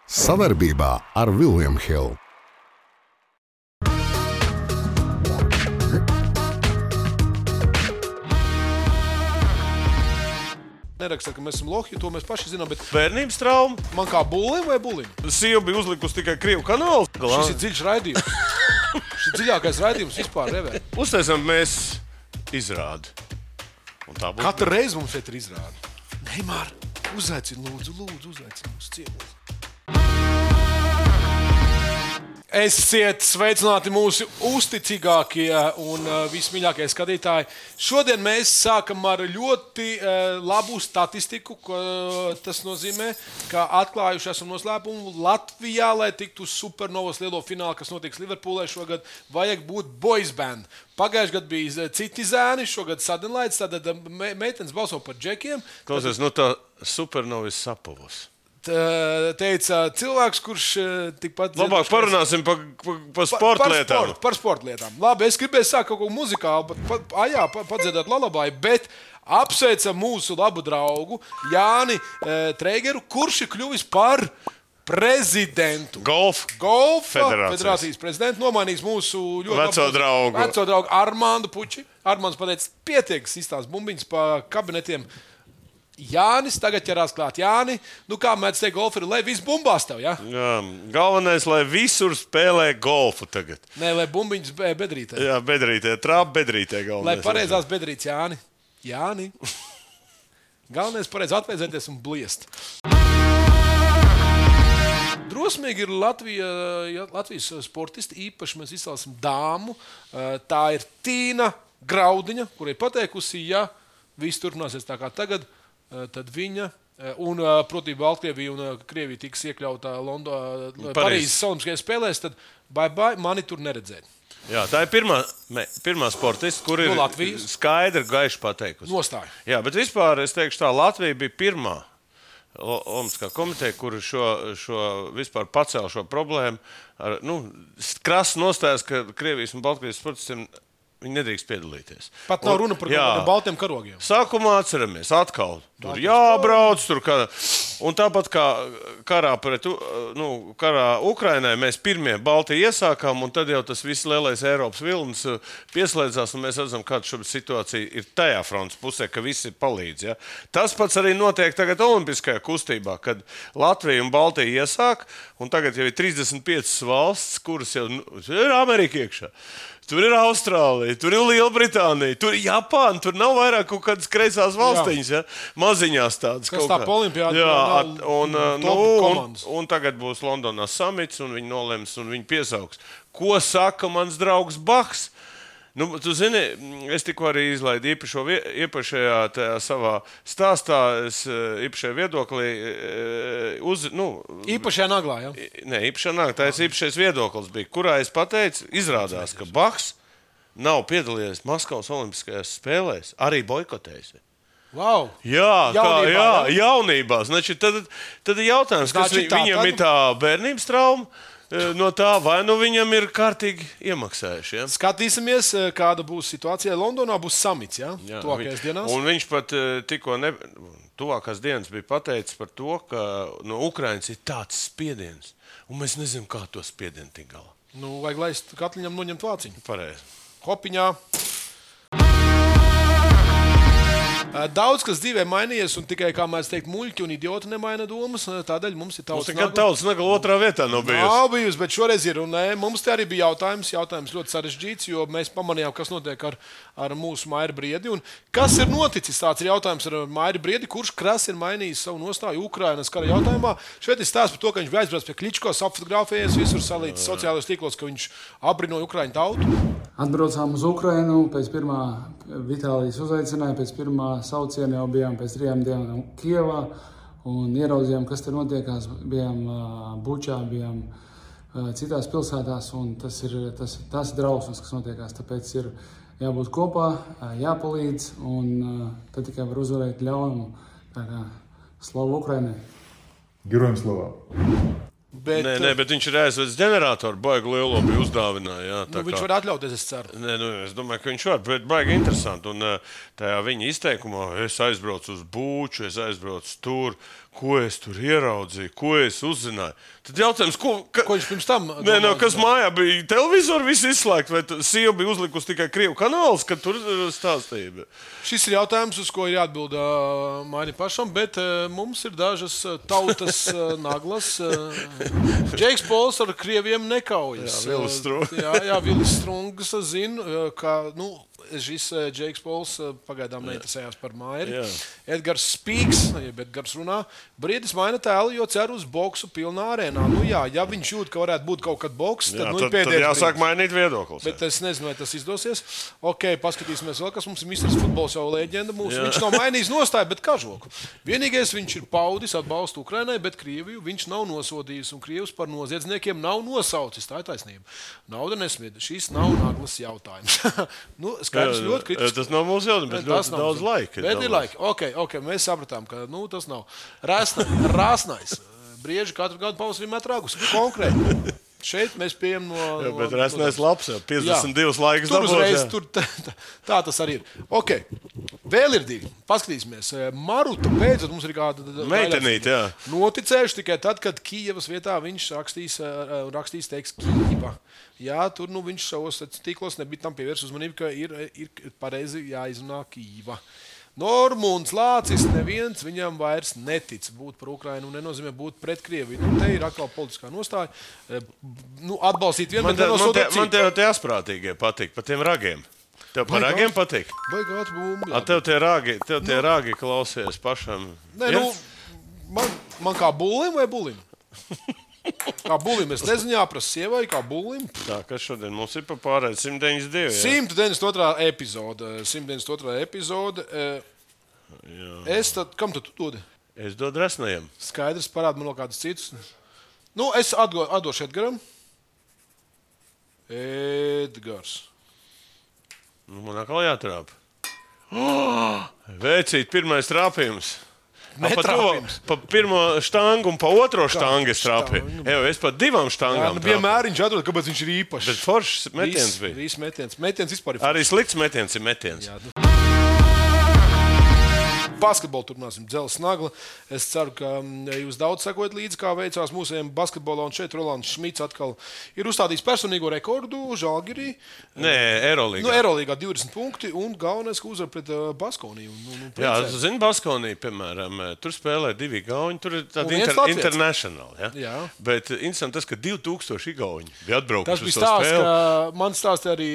Savarbībā ar William Hill. Neraksta, ka mēs esam lohi, to mēs paši zinām, bet Bērnības trauma. man kā bulim vai bulim? Sieva bija uzlikusi tikai Krievu kanālu. Šis ir dziļš raidījums. Šis ir dziļākais raidījums vispār revē. Uztaisām mēs izrādi. Un tā būs. Katru reizi mums šeit ir izrāda. Neimār, uzaicini, lūdzu, uzaicini mūsu ciemos. Esiet sveicināti mūsu uzticīgākie un vismīļākie skatītāji. Šodien mēs sākam ar ļoti labu statistiku. Tas nozīmē, ka atklājuši esam noslēpumu Latvijā, lai tiktu uz Supernovas lielo finālu, kas notiks Liverpoolē šogad, vajag būt boys band. Pagājušajā gadā bija citi zēni, šogad Sadenlaids, tad meitenes balso par džekiem. Klausies, no tā Supernovas sapavos. Teica cilvēks, kurš tikpat... Labāk parunāsim par sportlietām. Par sportlietām. Labi, es gribēju sākt kaut ko muzikālu, padziedāt lalabai, bet apsveicam mūsu labu draugu Jāni Treigeru, kurš ir kļuvis par prezidentu. Golfa federācijas prezidentu, nomainījis mūsu ļoti veco draugu Armandu Puči. Armands pateica, pietiek izstāst bumbiņas pa kabinetiem. Jānis tagad ķerās klāt. Jāni, nu kā mēdz teikt, golfi ir, lai viss bumbās tev, ja? Jā, galvenais, lai visur spēlē golfu tagad. Nē, lai bumbiņas bedrītē. Jā, bedrītē, trāp bedrītē galvenais. Lai pareizās bedrītes, Jāni. Jāni. Galvenais pareiz atvēzēties un bliest. Drosmīgi ir Latvijas sportisti, īpaši mēs izcēlsim dāmu. Tā ir Tīna Graudiņa, kurai pateikusi, ja viss turpināsies tā kā tagad, tad viņa un, proti, Baltkrievija un Krievija tiks iekļautā Parīzes Olimpiskajās spēlēs, tad bye, mani tur neredzēt. Jā, tā ir pirmā sportista, kur ir skaidri gaiši pateikusi. Nostāja. Jā, bet vispār es teikšu tā, Latvija bija pirmā Olimpiskā komiteja, kur šo vispār pacēla šo problēmu. Krasi nostājas, ka Krievijas un Baltkrievijas sportistiem viņi nedrīkst piedalīties. Pat nav runa par baltiem karogiem. Sākumā atceramies, atkal tur jābrauc, tur un tāpat kā karā Ukrainai mēs pirmie Baltiju iesākām, un tad jau tas viss lielais Eiropas vilnis pieslēdzās, un mēs redzam, kāda šobrīd situācija ir tajā frontes pusē, ka visi palīdz. Ja? Tas pats arī notiek tagad olimpiskajā kustībā, kad Latvija un Baltija iesāk, un tagad jau ir 35 valsts, kuras jau ir Amerika iekšā. Tur ir Austrālija, tur ir Lielbritānija, tur ir Japāna, tur nav vairāk kaut kādas kreisās valstiņas, ja? Maziņās tādas. Kas tā olimpiāda? Un tagad būs Londonā samits, un viņi nolems, un viņi piesauks. Ko saka mans draugs Bahs? Tu zini, es tikko arī izlaidu iepašajā tajā savā stāstā, īpašajā viedoklī. Īpašajā naglā, ja? Nē, īpašajā naglā, tā ir īpašais viedoklis bija, kurā es pateicu, izrādās, ka Bahs nav piedalījies Maskavas olimpiskajās spēlēs, arī boikotējis. Wow. Jaunībā. Znači, tad ir jautājums, kas viņam ir tā bērnības trauma. No tā, vai nu viņam ir kārtīgi iemaksājuši. Ja? Skatīsimies, kāda būs situācija. Londonā būs samits, ja? Tuvākajās dienās. Un viņš pat tikko tuvākās dienas bija pateicis par to, ka no Ukrainas ir tāds spiediens, un mēs nezinām, kā to spiedienu tik galā. Vajag laist katliņam noņemt vāciņu. Pareizi. Hopiņā. Daudz, kas dzīvē mainījies, un tikai, kā mēs teikt, muļķi un idioti nemaina domas, tādēļ mums ir tautas nagla. Tautas nagla otrā vietā nav bijusi. Nav bijusi, bet šoreiz ir, un mums te arī bija jautājums ļoti sarežģīts, jo mēs pamanījām, kas notiek ar mūsu Mairi Briedi, un kas ir noticis, tāds ir jautājums ar Mairi Briedi, kurš krasi ir mainījis savu nostāju Ukrainas kara jautājumā. Šeit ir stāsts par to, ka viņš bija aizbraucis pie Kličko, apfotografējies, visur salīdz sociālajos tīklos, ka viņš abrinoja Ukraiņu tautu. Atbraucām uz Ukrainu, pēc pirmā Vitālijas uzaicināja, pēc pirmā sauciena jau bijām pēc 3 dienām Kievā un ieraudzījām, kas te notiekās. Bijām Bučā, bijām citās pilsētās, un tas ir drausmas, kas notiekās. Tāpēc ir jābūt kopā, jāpalīdz, un tad tikai var uzvarēt ļaunumu. Tā kā slavu Ukrainai! Gerojam slava! Bet viņš ir aizvedis ģeneratoru, baigi lielo bija uzdāvināja. Viņš var atļauties, es ceru. Es domāju, ka viņš var, bet baigi interesanti. Un tajā viņa izteikumā es aizbraucu uz Būču, es aizbraucu tur. Ko es tur ieraudzīju, ko es uzzināju? Tad jautājums, ko Ko viņš pirms tam kas mājā bija? Televizoru viss izslēgt, vai sieva bija uzlikusi tikai Krievu kanāls, kad tur stāstīja? Šis ir jautājums, uz ko ir jāatbild mani pašam, bet mums ir dažas tautas naglas. Džeiks Pols ar krieviem nekaujas. Jā, Vilis Strungs zina, ka šis Džeiks Pols pagaidām neinteresējās par Mairi. Edgars Spīks, jeb Edgars runā, Briedis maina tēlu, jo cer uz boksu pilnā arēnā. Ja viņš jūt, ka varētu būt kaut kad boks, tad tad jāsāk mainīt viedoklis. Bet es nezinu, vai tas izdosies. Ok, paskatīsimies vēl, kas mums ir Misters Futbols jau leģenda. Viņš nav mainījis nostāju, bet kažoku. Vienīgais viņš ir paudis atbalstu Ukrainai, bet Krieviju viņš nav nosodījis. Un Krievus par noziedzniekiem nav nosaucis. Tā ir taisnība. Nauda nesmieda. Šis nav naglas jautājums. Skaidrs ļoti kritiski. Tas nav mūsu jautājums, bet ļoti daudz laika. Bet ir laika. Ok, mēs sapratām, ka tas nav. Rāsnais. Brieži katru gadu pavasarī met ragus. Konkrēti. Šeit mēs pieejam no... Bet resnēs labs, jau 52 laikas dabūs. Tur uzreiz, dabūs, tā tas arī ir. Ok, vēl ir divi. Paskatīsimies. Maruta beidzot mums ir kāda... Meitenīte, jā. Noticējuši tikai tad, kad Kijevas vietā viņš rakstīs teiks Kijeva. Jā, tur viņš savos tīklos nebija tam pievērs uzmanību, ka ir pareizi jāizrunā Kijeva. Normunds Lācis neviens viņam vairs netic būt par Ukrainu un nenozīmē būt pret Krieviju. Te ir atkal politiskā nostāja. Atbalstīt vienu, bet nenosodīt citu. Man te asprātīgie patīk, par tiem ragiem. Tev par ragiem patīk? Baigāt bumbi. Tev tie ragi klausies pašam. Nē, man kā bulim vai bulim? Kā bulim, es nezinu, jāprasa sievai, kā bulim. Tā, kas šodien mums ir pa pārēd 192. 192. epizode. 192. epizode. Kam tu dodi? Es dodu resnajam. Skaidrs, parāda man vēl kādus citus. Es atdošu Edgaram. Edgars. Man atkal jātrāp. Veicīt, pirmais trāpījums. Pa pirmo štangu un pa otro štangu es trāpīju. Es pa divām štangām trāpīju. Vienmēr viņš atrod, kāpēc viņš ir īpašs. Bet foršs metiens bija. Viss metiens. Metiens vispār ir foršs. Arī slikts metiens ir metiens. Jā, basketbolu turpināsim, Dzeles Nagla. Es ceru, ka jūs daudz sekojat līdzi, kā veicās mūsējiem basketbolā. Un šeit Rolands Šmits atkal ir uzstādījis personīgo rekordu Žalgirī. Nē, Eurolīgā. Eurolīgā 20 punkti un galvenais, ka uzvar pret Baskoniju. Jā, tu zini, Baskonija, piemēram, tur spēlē 2 igauņi, tur ir tāda international. Ja? Bet interesanti tas, ka 2000 igauņi bija atbraukuši uz to spēli. Tas bija stāsts, ka man stāstīja arī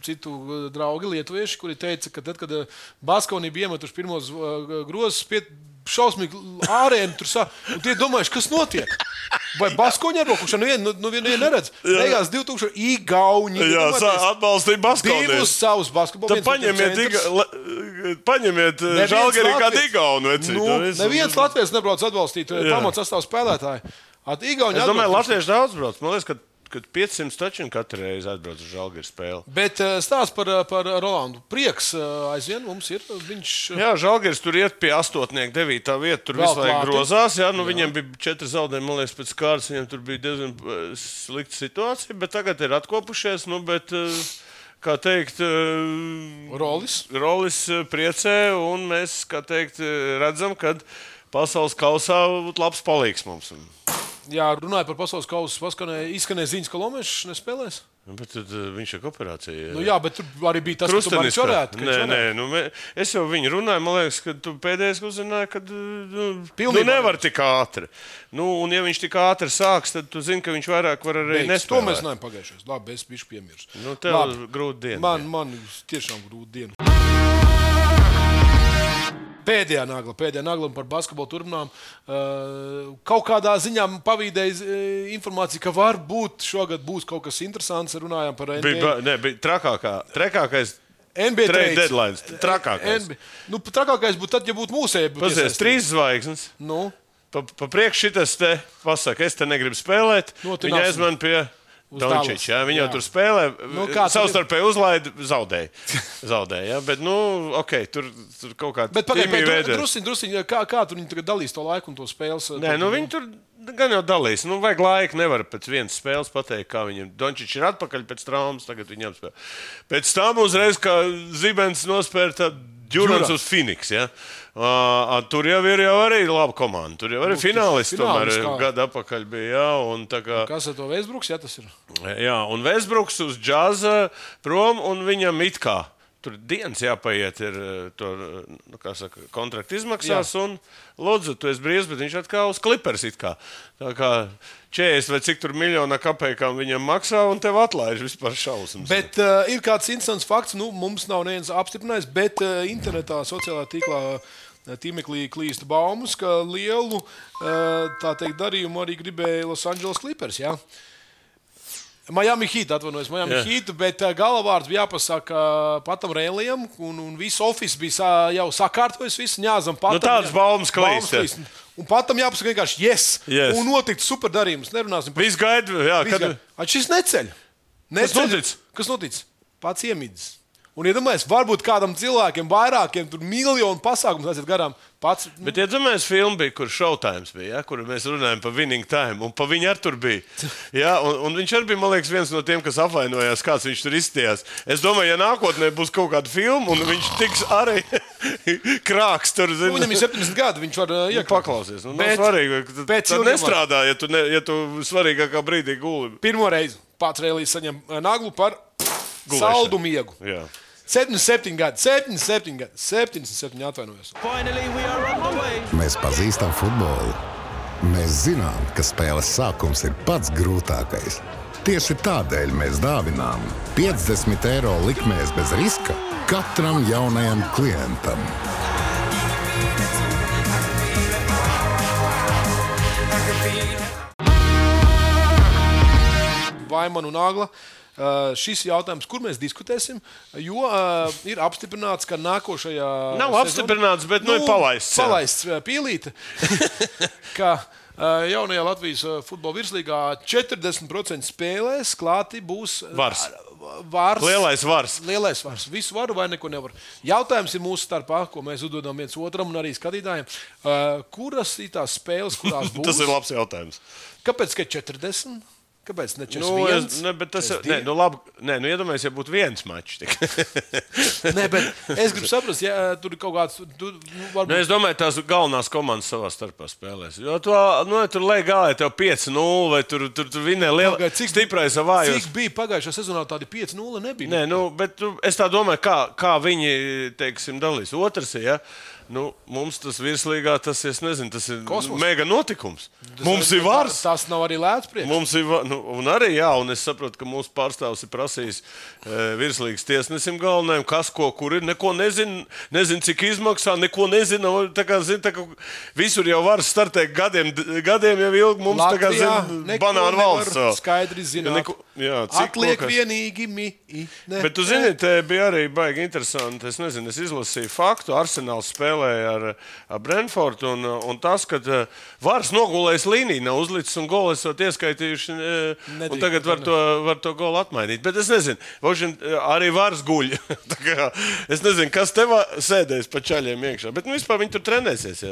citu draugi lietuvieši, kuri teica, ka tad, kad Baskonija bija iemetuši pirmos grozs šausmīgi ārēni tur un tie domājuši, kas notiek? Vai Baskoņi arbokuši? Nevienu neredz. Beigās 2000 igauņi. Jā, atbalstīja Baskoniju. Divus savus basketbolu. Tad paņemiet Žalgirī kādu igaunu. Neviens Latvijas nebrauc atbalstīt pamats sastāvu spēlētāju. Es domāju, latvieši daudz brauc. Man liekas, kad 500 taču katru reizi atbrauc uz Žalgiris spēli. Bet stāsts par Rolandu. Prieks aizvien mums ir. Jā, Žalgiris tur iet pie 8. 9. vieta. Tur visu laiku grozās. Jā, viņiem bija 4 zaudējumi. Man liekas, pēc kārtas viņiem tur bija diezgan slikta situācija. Bet tagad ir atkopušies. Bet, kā teikt, Rolis priecē. Un mēs, kā teikt, redzam, ka pasaules kausā būtu labs palīgs mums. Jā, runāja par pasaules kausu, izskanēja ziņas, ka Lomešs nespēlēs. Bet tad viņš ir operācija. Jā, bet tur arī bija tas, ka tu arī čorētu. Nē, es jau viņu runāju, man liekas, ka tu pēdējais uzzināji, ka nevar tik ātri. Un ja viņš tik ātri sāks, tad tu zini, ka viņš vairāk var arī nespēlēt. To mēs neesam pagājušais. Labi, es bišu piemirstu. Tev grūti diena. Man tiešām grūti diena. Pēdējā nagla par basketbolu turpinām. Kaut kādā ziņā pavīdēja informācija, ka varbūt šogad būs kaut kas interesants. Runājām par NBA. Bija trakākais NBA trade deadlines. Trakākais. Trakākais būtu tad, ja būtu mūsēji. Pazies, 3 zvaigznes. Pa priekš šitas te pasaka, es te negribu spēlēt. Viņa aizman pie... Dončič, viņi jau tur spēlē, savstarpēji uzlaida, zaudēja. Ja? Bet, tur kaut kāda drusciņ, kā tur viņi tagad dalīs to laiku un to spēles? Nē, viņi tur gan jau dalīs. Vajag laiku, nevar pēc vienas spēles pateikt, kā viņam. Dončič ir atpakaļ pēc traumas, tagad viņi apspēlē. Pēc tam uzreiz, kā Zibens nospēra Durants uz Phoenix. Ja? Tur jau ir arī laba komanda. Tur jau arī finālisti tomēr gadu atpakaļ bija. Jā, un tā kā... Kas ar to Westbrooks, tas ir? Jā, un Westbrooks uz džaza prom, un viņam it kā tur dienas jāpaiet ir to, kontraktu izmaksās, un lūdzu, tu esi brīvs, bet viņš atkal uz Clippers it kā. Tā kā 40 vai cik tur miljonā kapekām viņam maksā, un tev atlaiž vispār šausmas. Bet ir kāds interesants fakts, mums nav neviens apstiprinājis, bet internetā, sociālā tīmeklī klīst baumas, ka lielu, tā teikt, darījumu arī gribēja Los Angeles Clippers, jā? Miami Heat, Heat, bet galvārds bija jāpasaka Patam Rēlijam, un viss office bija jau sakārtojis, viss ņāzam Patam. Tādas baumas klīst. Un Patam jāpasaka vienkārši yes. Un notikt super darījums. Nerunāsim par... Viss gaida, jā. Šis neceļ. Kas notic? Pats iemidzis. Un iedomājies, varbūt kādam cilvēkiem, vairākiem, tur miljonu pasākums aiziet garām. Pats, Bet iedomājies, filma bija, kur Showtime bija, ja, kur mēs runājam par Winning Time, un pa viņu ar tur bija. Ja, un viņš arī bija, man liekas, viens no tiem, kas apvainojās, kāds viņš tur izstījās. Es domāju, ja nākotnē būs kaut kāda filma, un viņš tiks arī krāks tur. Viņam ir 70 gadi, viņš var paklausies. Nav svarīgi, tad nestrādā, ja tu svarīgākā brīdī guli. Pirmo reizi Pats Rēlijs saņem naglu par saldu miegu. Jā. 77 gadi, 77 atvainojos. Mēs pazīstam futbolu. Mēs zinām, ka spēles sākums ir pats grūtākais. Tieši tādēļ mēs dāvinām 50 eiro likmēs bez riska katram jaunajam klientam. Vaiman un Agla. Šis jautājums, kur mēs diskutēsim, jo ir apstiprināts, ka nākošajā Nav apstiprināts, bet ir palaists. Palaists pīlīte, ka jaunajā Latvijas futbola virslīgā 40% spēlēs klāti būs Vars. Lielais vars. Visu varu vai neko nevar. Jautājums ir mūsu starpā, ko mēs uzdodam viens otram un arī skatītājiem. Kuras ir tās spēles, kurās būs? Tas ir labs jautājums. Kāpēc, ka 40? Kāpēc ne 41? Iedomājies, ja būtu viens mačs. Nē, bet es gribu saprast, ja tur ir kaut kāds... varbūt... Es domāju, tās galvenās komandas savā starpā spēlēs. Jo tur lej gāja tev 5-0, vai tur vinē liela stiprais avājos. Cik bija pagājušā sezonā tādi 5-0 nebija? Nē, bet es tā domāju, kā viņi, teiksim, dalīs. Otrs, ja? Mums tas virslīgā, tas ir Kosmos. mega notikums. Mums ir vars. Tas nav arī lēts priekš. Mums ir, un arī, jā, un es saprotu, ka mūsu pārstāvs ir prasījis virslīgas tiesnesim galvenajam, kas, kur ir, neko nezin, cik izmaksā, neko nezina. Tā kā visur jau var startēt gadiem jau ilgi. Mums Latvijā, banānu valsts. Skaidri zināt. Atliek vienīgi Bet tu zini, te bija arī baigi interesanti. Es nezinu, es izlasīju faktu. Arsenāls spēlēja ar Brentfordu, un tas, ka Vars nogulējis līniju, nav uzlicis un golu esot ieskaitījuši, un tagad var to golu atmainīt. Bet es nezinu, arī Vars guļ. Es nezinu, kas tev sēdēs pa čaļiem iekšā. Bet vispār viņi tur trenēsies,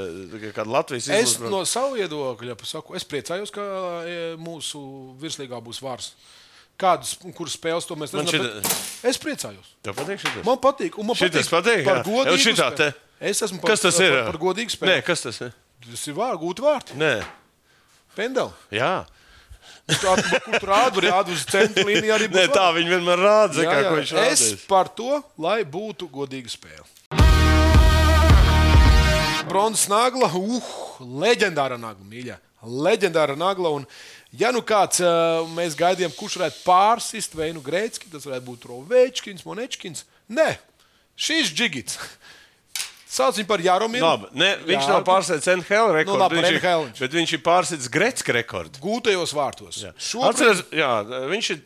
kāda Latvijas izlasa. Es no savu viedokļa saku, es priecājos, ka mūsu virslīgā būs Vars. Kuras spēles to mēs nezinām? Es priecājos. Tev patīk šitas? Man patīk. Un man šitas patīk par godīgu spēli. Es esmu kas tas ir? Par godīgu spēli. Nē, kas tas ir? Tas ir gūti vārti. Nē. Pendeli. Jā. Kur tu rādu uz centra līniju arī būs. Nē, tā viņi vienmēr rāda, kā viņš rādīs. Es par to, lai būtu godīga spēle. Bronzas nagla, leģendāra nagla, mīļā. Leģendāra nagla, un ja kāds mēs gaidījām, kurš varētu pārsist Veinu Greicki, tas varētu būt Rovečkins, Monečkins. Nē, šis Džigits. Sauc viņu par Jaromiru. Viņš nav pārsēdis NHL rekordu, bet viņš ir pārsēdis Greicka rekordu. Gūtajos vārtos. Atceries, viņš ir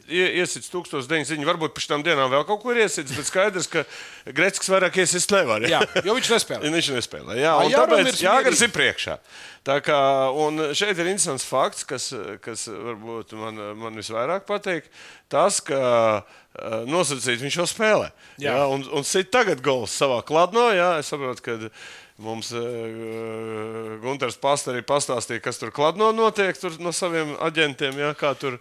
iesits 1900, varbūt pēc tam dienām vēl kaut ko ir iesits, bet skaidrs, ka Greicks vairāk iesist nevar. Jā, jo viņš nespēlē. Viņš nespēlē, jā. Un tāpēc Jāgars ir priekšā. Tā kā, un šeit ir interesants fakts, kas varbūt man visvairāk patīk, tas, ka nosacīt viņš jau spēlē. Jā, un sit tagad gols savā kladnā. Jā, es saprotu, ka Mums Gunters Pasta arī pastāstīja, kas tur Kladno notiek tur no saviem aģentiem, ja, kā tur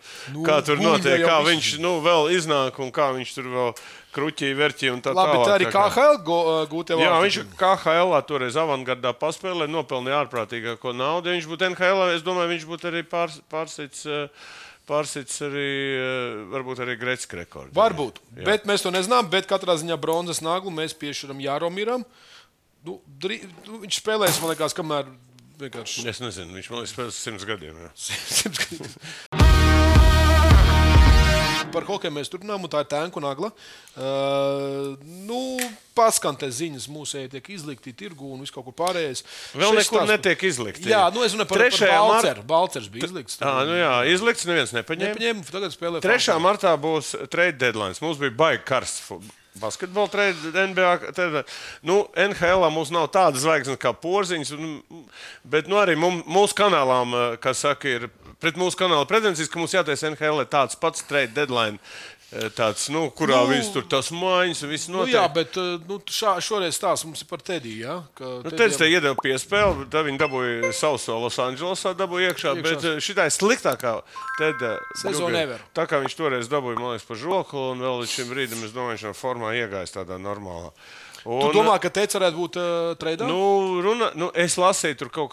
notiek, kā viņš vēl iznāk un kā viņš tur vēl kruķī, verķī un tā tālāk. Labi, tā arī KHL gūtie vārti. Jā, viņš KHL toreiz avangardā paspēlē, nopelnīja ārprātīgāko naudu. Ja viņš būtu NHL, es domāju, viņš būtu arī pārsits arī, varbūt arī Gretzka rekordu. Varbūt, bet mēs to nezinām, bet katrā ziņā bronzas naglu mēs piešķiram Jāromiram. Viņš spēlēs, man liekas, kamēr vienkārši... Es nezinu, viņš man liekas spēlēs 100 gadiem. Jā. 100 gadiem. Par hokeju mēs turpinām, un tā ir Tēnku nagla. Paskan te ziņas mūsēji tiek izlikti tirgu un viss kaut kur pārējais. Vēl nekur netiek izlikti. Jā, es runāju par Balceru. Balcers bija izlikts. Izlikts, neviens nepaņēma. Tagad spēlē 3. martā būs trade deadlines. Mums bija baigi karsts basketbola trade NBA. NHL mums nav tādas zvaigznes kā Porziņš, bet arī mūsu kanālām, kā saka, ir pret mūsu kanāla pretensijas, ka mums jātais NHL tāds pats trade deadline. Tāds, kurā viss tur tas mājiņas un viss notiek. Jā, bet šoreiz stāsts mums ir par Tediju, jā? Tedijs te iedeva piespēli, tad viņi dabūja sauso Los Andželosā, dabūja iekšā, bet šitā ir sliktākā Tedija sezona ever. Tā kā viņš toreiz dabūja, man liekas, pa žoklu, un vēl līdz šim brīdim, es domāju, viņš nav formā iegājis tādā normālā. Tu domā, ka Teids varētu būt treidā? Es lasīju, tur kaut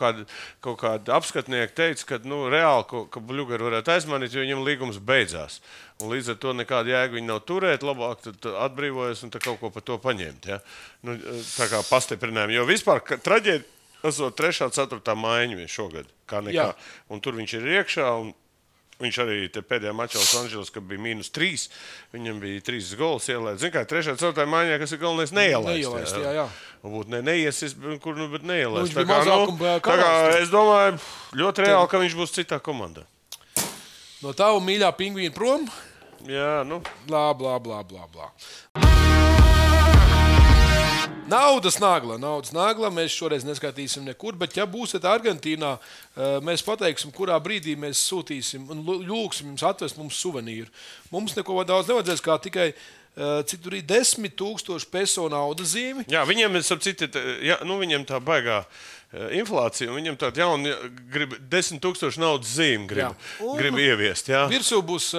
kādi apskatnieki teica, ka reāli, ka Bļugaru varētu aizmanīt, jo viņam līgums beidzās. Un līdz ar to nekāda jēga viņi nav turēt, labāk tad atbrīvojas un kaut ko par to paņemt. Ja? Tā kā pastiprinājumi. Jo vispār traģēdija esot 3. 4. maiņa šogad, kā nekā. Un tur viņš ir iekšā. Viņš arī pēdējā mačā Los Andželos, kad bija -3, viņam bija 3 gols ielaist. Zini kā, 3. 4. maiņā, kas ir galvenais, neielaist. Jā. Varbūt neiesis, bet neielaist. Viņš bija mazākuma karals. Es domāju, ļoti reāli, ka viņš būs citā komandā. No tava mīļā pingvīna prom? Jā, Blā. Naudas nagla. Mēs šoreiz neskatīsim nekur, bet ja būsiet Argentīnā, mēs pateiksim, kurā brīdī mēs sūtīsim un lūgsim jums atvest mums suvenīru. Mums neko daudz nevajadzēs, kā tikai cik tur ir 10,000 peso naudas zīmi. Jā, viņiem viņiem tā baigā inflācija, un viņam tāda jauna grib 10,000 naudas zīmi grib ieviest. Jā. Virsū būs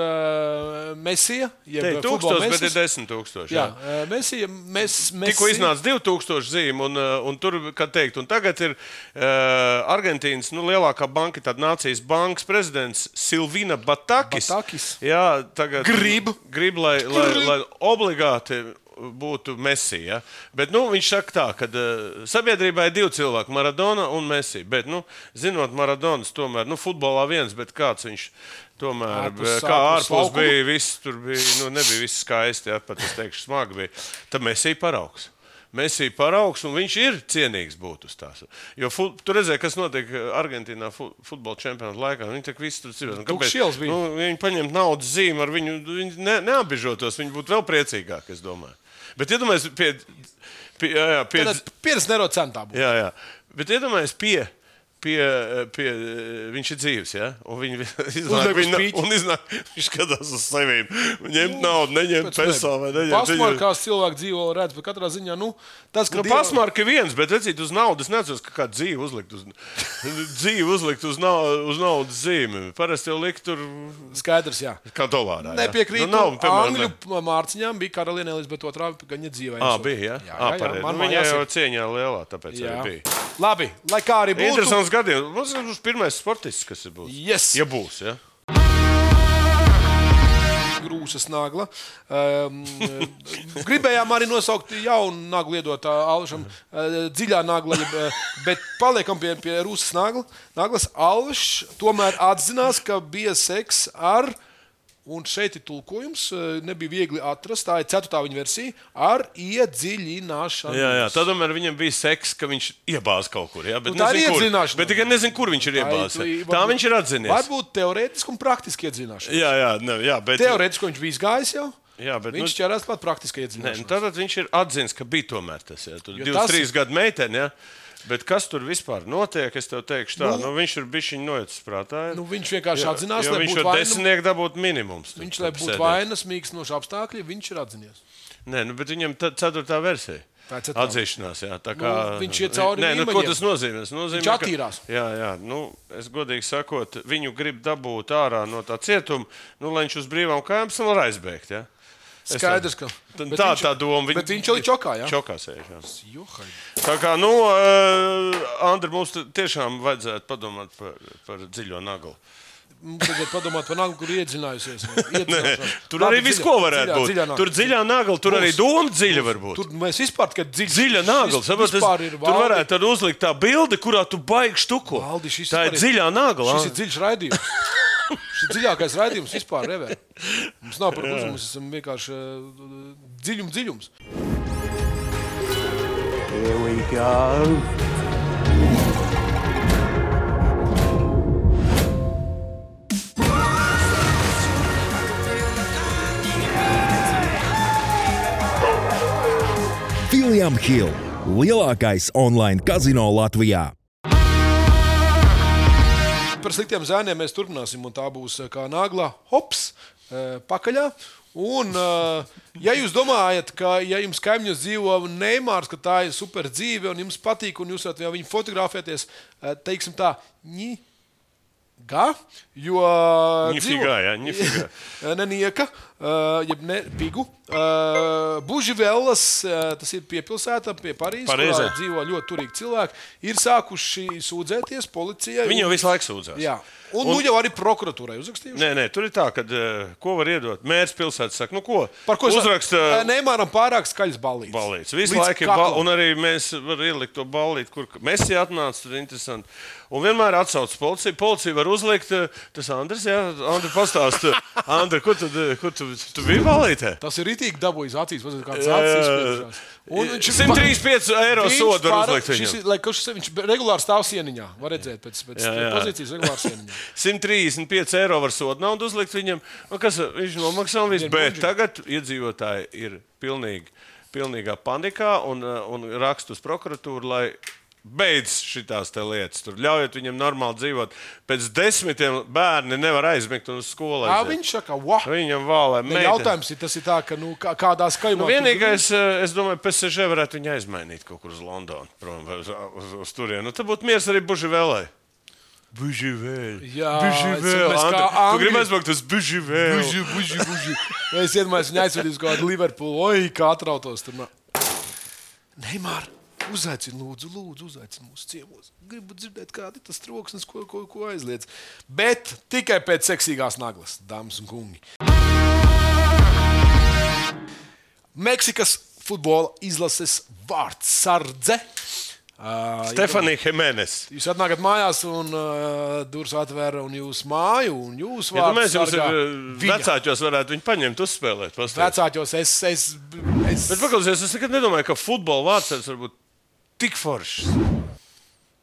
Mesija, jeb 1000, bet ir 10,000. Jā, Mesija. Tikko iznāca 2,000 zīmi, un tur, kā teikt, un tagad ir Argentīnas lielākā banka, tāda nācijas bankas prezidents Silvina Batakis. Jā, tagad grib, lai obligāti būtu Messi. Ja? Bet viņš saka tā, ka sabiedrībā ir 2 cilvēki, Maradona un Messi. Bet, zinot Maradonas, tomēr, futbolā viens, bet kāds viņš tomēr, kā ārpus bija, viss tur bija, nebija viss skaisti, ja? Pat es teikšu, smagi bija. Tad Messi paraugs. Un viņš ir cienīgs būt uz tās. Jo tu redzēji, kas notiek Argentīnā futbola čempionāta laikā. Viņi tak visi tur dzīvo. Viņi paņemt naudas zīmi ar viņu, viņi neapbižotos, viņi būtu vēl priecīgāki, es domāju. Bet iedomājies pie neiro centā būtu. Jā. Bet iedomājies viņš ir dzīves, ja? Un iznāk, viņš skatās uz sevīm. Ņemt naudu, neņemt peso vai neņemt. Pasmarkās cilvēki dzīvo redz, bet katrā ziņā, tas, ka pasmarka ir viens, bet redzīt uz naudas, necos, ka kāda dzīve uzlikt uz naudas zīmi. Parasti jau likt tur... Skaidrs, jā. Kā dolārā, jā. Nepiekrītu, Angļu mārciņām bija karaliene Elizabete II, gaņa dzīvē. Bija, jā? Viņa jau cieņā lielā, tāpēc arī bija. Labi, lai kā arī būtu. Interesants gadījums. Mums ir pirmais sportists, kas ir būs. Yes. Ja būs, ja? Grūsas nagla. Gribējām arī nosaukt jaunu naglu iedot Alšam. Dziļā nagla, bet paliekam pie Rūsas naglas. Alš tomēr atzinās, ka bija seks ar... Un šeit ir tulkojums, nebija viegli atrast, tā ir 4. viņa versija, ar iedziļināšanu. Jā, tad viņam bija seks, ka viņš iebāz kaut kur. Jā, bet tā ir iedziļināšana. Bet tikai nezinu, kur viņš ir iebāz. Tā viņš ir atzinies. Varbūt teorētiski un praktiski iedziļināšana. Jā, bet... Teorētiski viņš bija izgājis jau. Jā, bet viņš ķerās pat praktiski iedziļināšana. Tātad viņš ir atzins, ka bija tomēr tas. Jā, tur 2-3 gadu meiteni, jā. Bet kas tur vispār notiek, es tev teikšu tā, viņš ir bišķiņ noicis prātā. Viņš vienkārši atzinās, lai būtu vaina. Viņš var 10 dabūt minimums. Viņš, lai būtu vainas, mīkstinoši apstākļi, viņš ir atzinies. Nē, bet viņam 4. versija. Atzīšanās, jā. Tā kā, viņš iet cauri līmeņiem. Ko tas nozīmē? Viņš attīrās. Jā. Es godīgi sakot, viņu grib dabūt ārā no tā cietuma, lai viņš uz brīvām kājām var aizbēgt, jā. Skaidrs, ka tā doma. Bet viņš jau ir čokā, jā? Čokā sēž, jā. Tā kā, Andri, mums tiešām vajadzētu padomāt par dziļo naglu. Mums vajadzētu padomāt par naglu, kur iedziļinājusies. Tur arī viss, ko varētu būt. Tur dziļā nagla, tur arī doma dziļa var būt. Tur mēs vispār tikai dziļa nagla. Tur varētu uzlikt tā bilde, kurā tu baigi štuko. Tā ir dziļā nagla. Šis ir dziļš raidījums. Šis ir dziļākais raidījums vispār ever. Mums nav par uzumu, mēs esam vienkārši dziļums. Here we go. William Hill, lielākais online kazino Latvijā. Par sliktiem zēniem mēs turpināsim, un tā būs kā nagla hops pakaļā. Un, ja jūs domājat, ka ja jums kaimiņos dzīvo Neimārs, ka tā ir super dzīve un jums patīk, un jūs varat viņu fotografēties, teiksim tā, jo Nenieka, jeb ne Pigu, Buživelas, tas ir piepilsēta pie Parīzes, kurā dzīvo ļoti turīgi cilvēki, ir sākuši sūdzēties policijai. Viņi jau visu laiku sūdzās. Jā. Un jau arī prokuratūrai uzrakstījuši. Nē, tur ir tā, ka ko var iedot? Mērs pilsētas saka, ko? Par ko uzraksta? Neimāram pārāk skaļas ballītes. Ballītes. Visu laiku ir ballītes. Un arī mēs varam ielikt to ballīti, kur Messi atnāca, tur interesanti. Un vienmēr atsauc policiju. Policija var uzlikt, tas Andris, jā? Andri pastāst. Andri, kur tu biji ballītē? Tas ir ritīgi dabūjis acīs, kāds acis izspiedušās. 135 eiro sodu var uzlikt viņam. Viņš regulāri stāv sieniņā. Var redzēt pēc pozīcijas regulāri sieniņā. 135 eiro var sodu naudu uzlikt viņam. Viņš nomaksā un viss. Bet tagad iedzīvotāji ir pilnīgā panikā un raksta uz prokuratūru, lai beidz šitās te lietas. Tur ļaujiet viņam normāli dzīvot. Pēc 10 bērni nevar aizmigt un uz skolu aiziet. Viņš saka, wow. Viņam vālē. Jautājums ir, tas ir tā, ka kādā skaļumā... Vienīgais, es domāju, PSG varētu viņu aizmainīt kaut kur uz Londonu, prom, uz turienu. Tad būtu miers arī Buživelai. Buživēl. Jā, tu gribi aizbraukt uz Buživēl. Buži. Es iedomājos viņu aizvedīs kaut kādu Liverpoolu. Oi, kā atrautos tur. Neimār, uzaicini, lūdzu, uzaicini mūsu ciemos. Gribu dzirdēt, kādi tas troksnis, ko aizliedz. Bet tikai pēc seksīgās naglas, dāmas un kungi. Meksikas futbola izlases vārdsardze. Stefanija Jimenez. Jūs atnākat mājās un durvis atvēra un jūs māju un jūs vārdsargā. Vecāķos varētu viņu paņemt, uzspēlēt. Vecāķos Bet paklausies, es nekad nedomāju, ka futbola vārdsargs var būt tik foršs.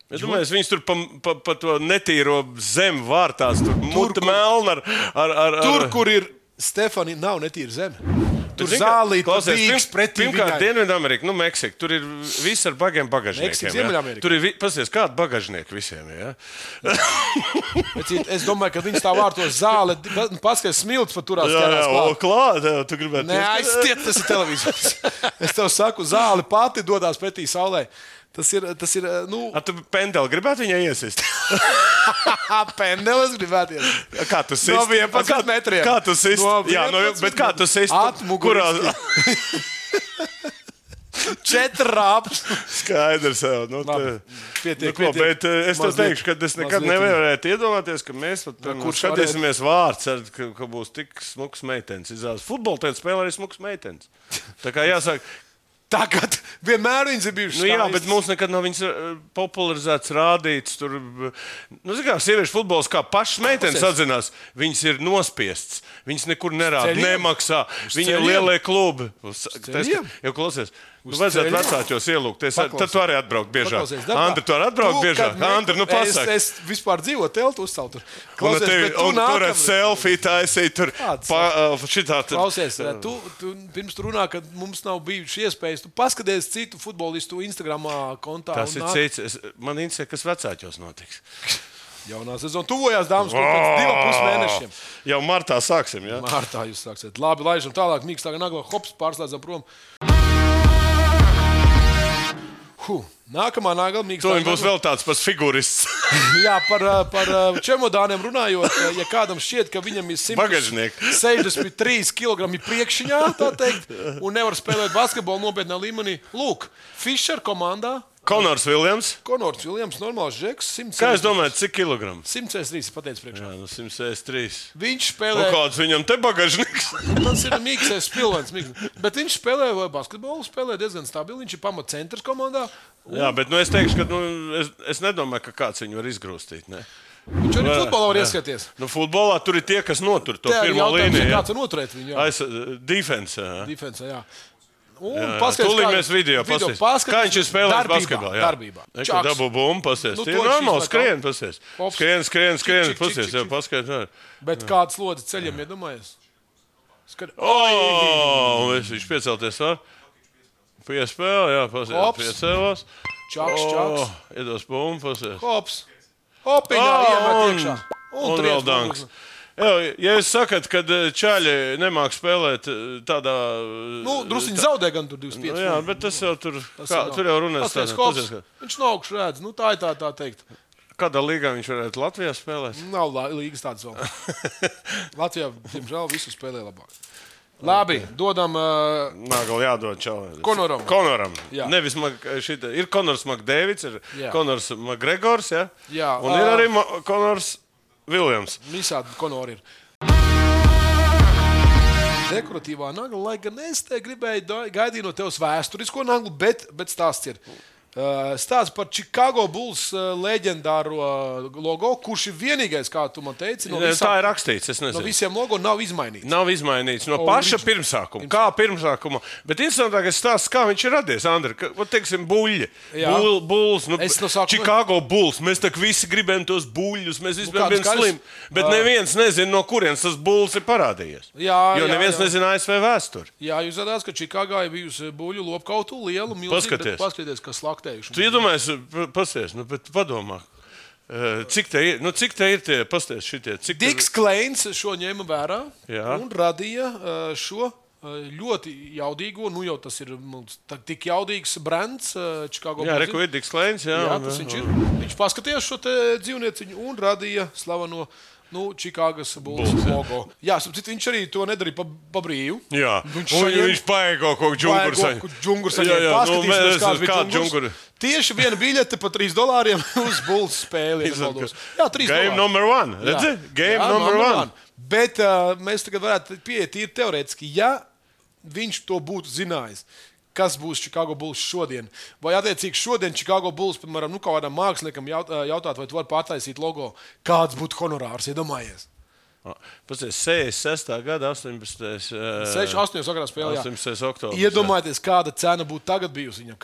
Es domāju, viņas tur pa to netīro zemi vārtās, tur muta melna ar... Tur, kur ir Stefanija, nav netīra zeme. Tur zālīt, bīgs pretī viņai. Pirmkārt, Dienvidamerika, Meksika, tur ir viss ar bagiem bagažniekiem. Meksika, Ziemeļamerika. Tur ir, pasies, kādi bagažnieki visiem, jā? Es domāju, ka viņas tā vārtos zāle, paskaties, smilts pat turās ķērās klāt. Klāt, tu gribētu... Neaizstiet, tas ir televizors. Es tev saku, zāle pati dodās pretī saulē. Tas ir, tu pendeli gribētu viņai iesist? Pendelis gribētu iesist. Kā tu sist? No 11 metriem. Kā tu sist? Jā, bet kā tu sist? Atmuguriski. 4 rāpus. Skaidrs jau. Pietiek. Bet es tev teikšu, ka es nekad nevarētu iedomāties, ka mēs skatīsimies vārds, ka būs tik smuks meitenes. Futbolu tēt spēlē arī smuks meitenes. Tā kā jāsaka, tagad vienmēr viņas ir bijušas skaistas. Jā, bet mums nekad nav viņas popularizēts, rādīts. Tur, sieviešu futbols kā pašas meitenes atzinās, viņas ir nospiestas. Viņas nekur nerāda, nemaksā. Viņi ir lielie klubi. Jau klausies. Vajadzētu vecāķos ielūgt. Tad tu arī atbraukt biežāk. Andri, tu arī atbraukt biežāk. Andri, pasaka. Es vispār dzīvoju teltu uzceltu. Un tur ar selfiju taisīt. Tur šitā. Klausies, tu pirms tu runā, ka mums nav bijuši iespējas. Tu paskaties citu futbolistu Instagramā kontā. Tas ir cits. Man interesē, kas vecāķos notiks. Jaunā sezona tuvojās, dāmas, pēc 2,5 mēnešiem. Jau martā sāksim, jā? Martā jūs sāksiet. Labi, laižam tālāk. Mīkstāka nagla, hops, pārslēdzam prom. Nākamā nākamīgs. To viņam būs vēl tāds pats figurists. Jā, par čemodāniem runājot, ja kādam šķiet, ka viņam ir 163 kg priekšņā, tā teikt, un nevar spēlēt basketbolu nopietnā līmenī. Lūk, Fischer komandā. Konors Viljams, normāls žeks. Kā jūs domājat, cik kilogramu? 163, pateicu priekšā. Jā, 163. Viņš spēlē... Kāds viņam te bagažniks? Tas ir mīksais pilvens. Bet viņš spēlē basketbolu, spēlē diezgan stabili. Viņš ir pamatcentrs komandā. Jā, bet es teikšu, ka es nedomāju, ka kāds viņu var izgrūstīt. Ne? Viņš arī futbolā var ieskaties. Futbolā tur ir tie, kas notur to pirmo līniju. Kāds var noturēt viņu? Defense, jā. Tūlīt mēs video paskatīsimies. Kā viņš ir spēlējis basketbolā? Darbībā. Dabū bumbu, pasties. Tie ir normāli skrien, pasties. Skrien, pasties, jau paskaidro. Bet kāds lodzi ceļiem iedomājies? Viņš piecelties var. Piespēle, jā, pasties. Piecēlās. Čaks. Iedos bumbu, pasties. Hops. Hopiņā iemet iekšā. Un vēl danks. Ja jūs sakat, ka čaļi nemāk spēlēt tādā... Drusciņi zaudē gan tur 25. Jā, bet tas jau tur jau runās. Viņš no augšu redz. Tā ir tā teikt. Kādā līgā viņš varētu Latvijā spēlēt? Nav līgas tādas vēl. Latvijā, diemžēl, visu spēlē labāk. Labi, dodam... Nāgal jādod čalim. Konoram. Nevis ir Konors Makdēvids, ir Konors Makgregors, ja? Jā. Un ir arī Konors Viljams. Visādi Konori ir. Dekoratīvā nagla, lai gan es te gribēju gaidīt no tevs vēsturisko naglu, bet stāsts ir. Stāsts par Chicago Bulls leģendāro logo, kurš ir vienīgais, kā tu man teici, tā ir rakstīts, es nezinu. No visiem logo nav izmainīts. Nav izmainīts no paša pirmsākuma. Kā pirmsākuma. Bet interesantākais stāsts, kā viņš ir radies, Andri. Teiksim, buļļi. Bulls, Chicago Bulls. Mēs tak visi gribējam tos buļļus, mēs vispār bijām slimi. Bet neviens nezina, no kurienes tas Bulls ir parādījies. Jo neviens nezina ASV vēsturi. Jā, jūs zināt, ka Čikāgā ir bijusi buļļu lopkautu lielu, milzīgu, paskaties, kas slaktējuši. Tu iedomājies, pasties, bet padomā, cik te ir tie, pasties šitie? Diks Kleins šo ņēma vērā un radīja šo ļoti jaudīgo, jau tas ir tik jaudīgs brands Chicago Bulls. Jā, reku ir Diks Kleins, jā. Jā, tas viņš ir. Viņš paskatījās šo te dzīvnieciņu un radīja slaveno Čikāgas Bulls logo. Jā, viņš arī to nedarīja pa brīvu. Jā, viņš paēgo kaut džunguru saņēma. Paskatīsimies, kāds bija džungurs. Tieši viena biļete pa $3 uz Bulls spēli. Jā, $3. Game number one. Redzi? Game number one. Bet mēs tagad varētu pieiet tīri teorētiski, ja viņš to būtu zinājis. Kas būs Chicago Bulls šodien? Vai attiecīgi šodien Chicago Bulls, piemēram, kādam māksliniekam jautāt, vai tu vari pārtaisīt logo, kāds būtu honorārs, iedomājies? Pasties, 66. gada 18. 68. sakarā spēlē, 18. oktobris. Iedomājieties, kāda cena būtu tagad bijusi viņam,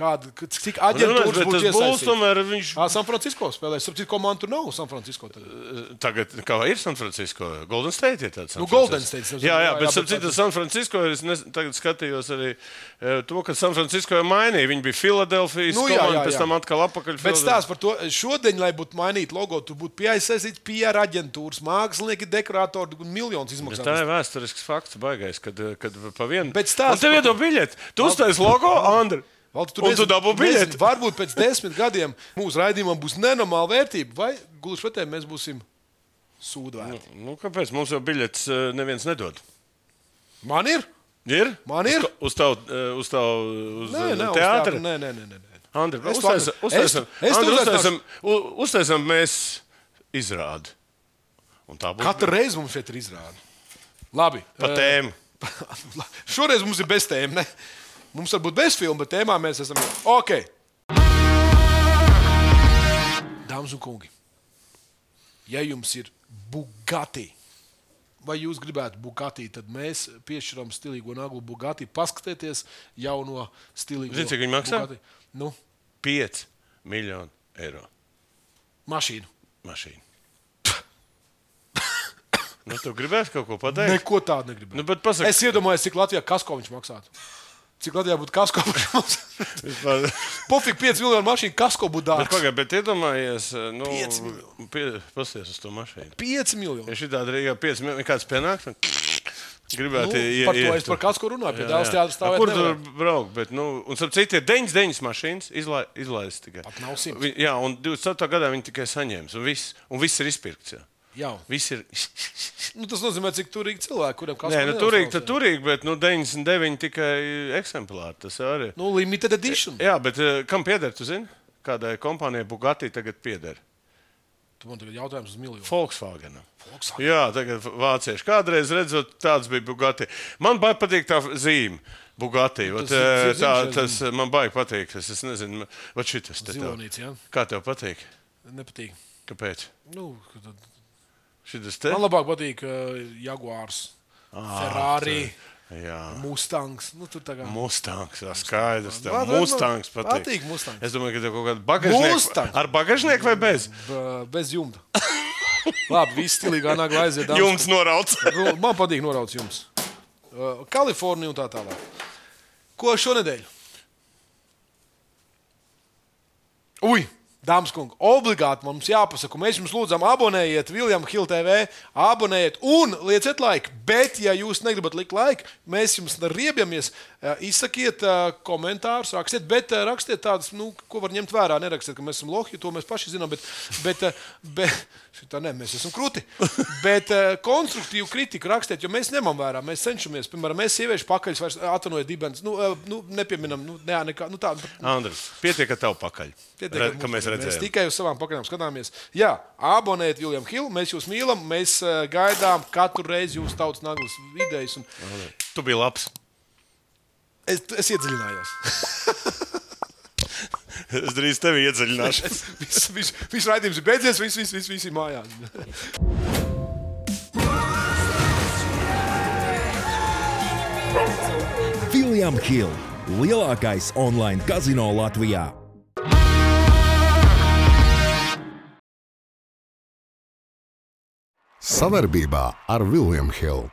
cik aģentūras būtu iesaistīts. San Francisco spēlēs, cik komandu tur nav San Francisco tagad? Tagad, kā ir San Francisco? Golden State ir tāds. Golden State. Jā, bet citas San Francisco, es tagad skatījos arī to, ka San Francisco jau mainīja. Viņi bija Filadelfijas komanda, pēc tam atkal apakaļ. Bet stāsts par to, šodien, lai būtu mainīt logo, tur būtu piesaistīts PR aģentūras, mākslinieki, dekorātori un miljonus izmaksāt. Tā ir vēsturisks fakts, baigais, kad pa vienu. Bet stāsts. Tev iedod biļeti. Tu uztais logo, Andri. Un tu dabū biļeti. Varbūt pēc 10 gadiem mūsu raidījumam būs nenormāla vērtība, vai gluži pretēji mēs būsim sūdvērti. Kāpēc? Mums jau biļetes neviens nedod. Man ir? Ir? Man ir? Uz teātri? Nē. Andri, uztaisam mēs izrādi. Katru reizi mums šeit ir izrāde. Labi. Pa tēmu. Šoreiz mums ir bez tēma, ne? Mums var būt bez filmu, bet tēmā mēs esam... Ok. Dāmas un kungi, ja jums ir Bugatti, vai jūs gribētu Bugatti, tad mēs piešķiram stilīgo naglu Bugatti. Paskatieties jauno stilīgo Bugatti. Zini, cik viņi maksā? 5 miljoni eiro. Mašīnu. Tu gribētu kaut ko pateikt? Neko tādu negribētu. Es iedomājos, cik Latvijā kasko viņš maksātu. Cik Latvijā būtu kasko Pofīgi 5 miljonu mašīnu kasko būtu dārgs. Bet iedomājies, 5 miljoni. Pasties uz to mašīnu. 5 miljoni. Ja šitādi Rīgā 5 miljoni, kāds pienāk? Gribētu, Par to es par kāds, ko runāju. Pie Dēls teātra stāvēt kur nevar. tur braukt? Bet, un starp citu, ir 99 mašīnas izlaistas tikai. Pat nav 100. Jā, un 27. gadā viņi tikai saņēmis. Un viss ir izpirkts. Jā. Viss ir. Tas nozīmē, cik turīgi cilvēki, kuriem kāds Nē, turīgi, bet 99 tikai eksemplāri. Tas arī. Limited edition. Jā, bet kam pieder, tu zini? Kādai kompānijai Bugatti tagad pieder? Tu man tagad jautājums uz miljonu. Volkswagenam. Jā, tagad vācieši. Kādreiz redzot, tāds bija Bugatti. Man baigi patīk tā zīme. Bugatti. Tas man baigi patīk. Es nezinu, vai šitas te tev. Zilonīts, jā. Kā tev patīk? Nepatīk. Kāpēc? Šitas te? Man labāk patīk Jaguars, Ferrari, Mustangs. Tur tā kā... Mustangs, jā, skaidrs. Tev Mustangs patīk. Patīk Mustangs. Es domāju, ka tev kaut kāda bagažnieka. Ar bagažnieku vai bez? Bez jumta. Labi, viss stilīgā nagla aiziet. Jumts norauts. Man patīk norauts jums. Kalifornija un tā tālāk. Ko šonedēļ? Dāmas kungi, obligāti mums jāpasaka, mēs jums lūdzam abonējiet William Hill TV, abonējiet un lieciet laiku, bet ja jūs negribat likt laiku, mēs jums riebjamies, izsakiet komentārus, rakstiet, bet rakstiet tādus, ko var ņemt vērā, nerakstiet, ka mēs esam lohi, to mēs paši zinām, bet šitā ne, mēs esam kruti, bet konstruktīvu kritiku rakstiet, jo mēs ņemam vērā, mēs cenšamies, piemēram, mēs sieviešu pakaļus vairs atvainojiet dibens, nepieminam, nekā, tā. Andris, pietiek ar tavu pakaļ, ka mēs redzējām. Mēs tikai uz savām pakaļām skatāmies. Jā, abonējiet William Hill, mēs jūs mīlam, mēs gaidām katru reizi jūsu tautas naglas idejas. Tu biji labs. Es iedziļinājos. Es drīz tevi iedziļināšu. Viss raidījums ir beidzies, viss ir mājās. William Hill, lielākais online kazino Latvijā. Savarbībā ar William Hill.